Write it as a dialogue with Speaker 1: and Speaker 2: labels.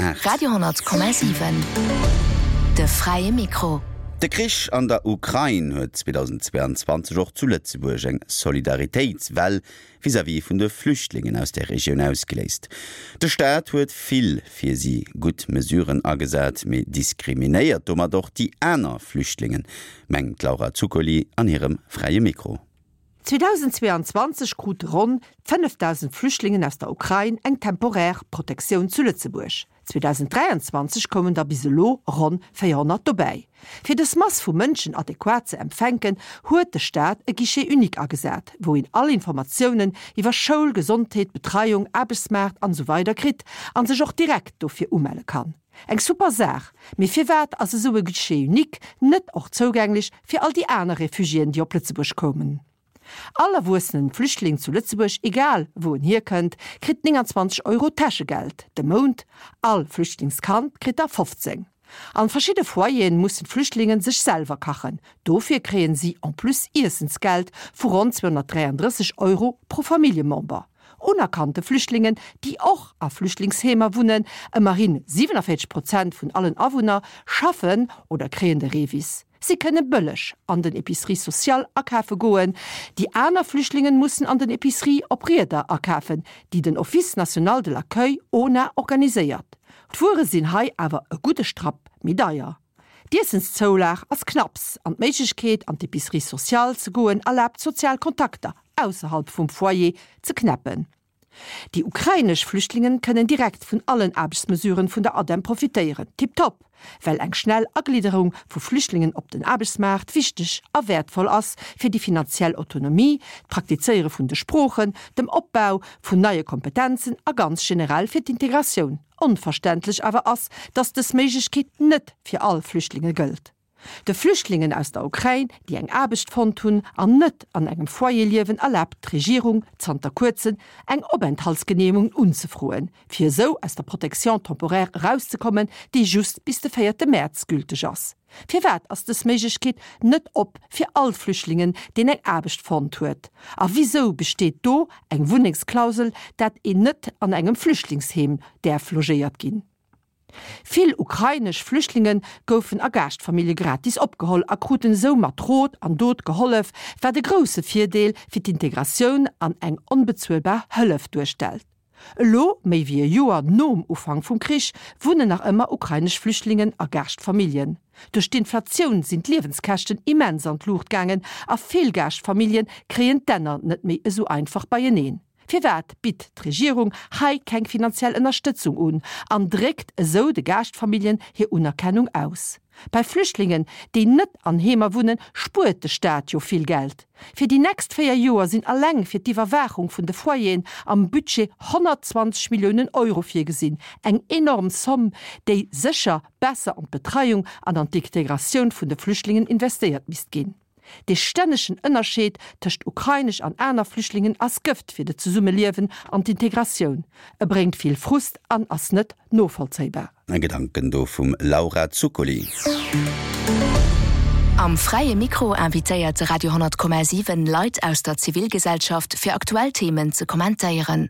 Speaker 1: 8.
Speaker 2: Radio 10,7 De fräie Mikro.
Speaker 1: De Krich an der Ukrain huet 2022 och zu Lëtzebuerg eng Solidaritéitswell vis-à-vis vun de Flüchtlingen aus där Regioun ausgeléist. De Staat huet vill fir si gutt Mesuren agesat, mee diskriminéiert domat och déi aner Flüchtlingen, mengt d'Laura Zuccoli an hirem Fräie Mikro.
Speaker 3: 2022 krute ronn 5.000 Flüchtlingen aus der Ukrain eng temporär Protektioun zu Lëtzebuerg. 2023 koumen der bis elo ronn 400 dobäi. Fir dës Mass vu Mënschen adequat ze empfänken, huet de Staat e Guichet unique agesat, wou een all Informatiounen iwwer Schoul, Gesondheet, Betreiung, Aarbechtsmaart an esou weider kritt an sech och direkt dofir umelle kann. Eng super Saach, mee firwat ass esou e Guichet unique net och zougänglech fir all déi aner Refugiéen, déi op Lëtzebuerg koumen? All erwuessenen Flüchtling zu Lëtzebuerg, egal wou en hierkënnt, kritt 29 Euro Täschegeld de Mount, all Flüchtlingskand kritt der 15. An verschidde Foyeren mussen d'Flüchtlingen sech selwer kachen, dofir kréien si en plus Iessensgeld vu ronn 233 Euro pro Familljemember. Unerkannte Flüchtlingen, déi och a Flüchtlingsheemer wunnen, ëmmerhin 47 Prozent vun allen Awunner, schaffen oder kréien de REVIS. Si kënne bëlleg an den Epiceries sociales akafe goen. Déi aner Flüchtlingen mussen an den Epiceries op Rieder akafen, déi den Office national de l'accueil, ona, organiséiert. D'Wuere sinn hei awer e gudde Strapp méi deier. D'Iessenszoulag ass knapps an d'Méiglechkeet an d'Epicerie sociale ze goen erlaabt sozial Kontakter ausserhalb vum Foyer ze knäppen. Déi ukrainesch Flüchtlingen kënnen direkt vun allen Aarbechtsmesuren vun der ADEM profitéieren. Tiptop, well eng schnell Aglidderung vu Flüchtlingen op den Aarbechtsmaart wichteg a wäertvoll ass fir déi finanziell Autonomie, d'Praktizéiere vun de Sproochen, dem Opbau vun neie Kompetenzen a ganz generell fir d'Integratioun. Onverständlech awer ass, datt dës Méiglechkeet net fir all Flüchtlinge gëllt. De Flüchtlingen aus der Ukrain, déi eng Aarbecht fonnt hunn an net an engem Foyer liewen, erlaabt d'Regierung zanter kuerzem eng Openthaltsgeneemegung unzefroen, fir esou aus der Protection temporaire erauszekommen, déi just bis de véierte Mäerz gülteg ass. Firwat ass dës Méiglechkeet net op fir all Flüchtlingen, deen eng Aarbecht fonnt huet? A wisou besteet do eng Wunnengsklausel, dat een net an engem Flüchtlingsheem däerf logéiert ginn? Vill ukrainesch Flüchtlinge goufen a Gaaschtfamillje gratis opgeholl a kruten esou mat Rot an Dot gehollef, wat e grousse Virdeel fir d'Integratioun an eng onbezuelbar Hëllef duerstellt. Elo, méi wéi e Joer nom Ufank vum Krich, wunnen nach ëmmer ukrainesch Flüchtlingen a Gaaschtfamilljen. Duerch d'Inflatioun sinn d'Liewenskäschten immens an d'Luucht gaangen a vill Gaaschtfamillje kréien d'Enner net méi esou einfach beieneen. Firwat bitt d'Regierung hei keng finanziell Ënnerstëtzung un an dréckt esou de Gaaschtfamilljen hir Unerkennung aus? Bei Flüchtlingen, déi net an Heemer wunnen, spuert de Staat jo vill Geld. Fir déi nächst 4 Joer sinn alleng fir d'Iwwerwaachung vun de Foyeren am Budget 120 Milliounen Euro virgesinn, eng enorm Somm, déi sécher besser an d'Betreiung an an d'Integratioun vun de Flüchtlingen investéiert misst ginn. Dee stännegen Ënnerscheed tëscht ukrainesch an aner Flüchtlingen ass Gëft fir de Zesummeliewen an d'Integratioun. E bréngt vill Frust an ass net novollzéibar.
Speaker 1: Gedanken do vum Laura Zuccoli.
Speaker 2: Am Fräie Mikro invitéiert de Radio 10,7 Leit aus der Zivilgesellschaft fir aktuell Themen ze kommentéieren.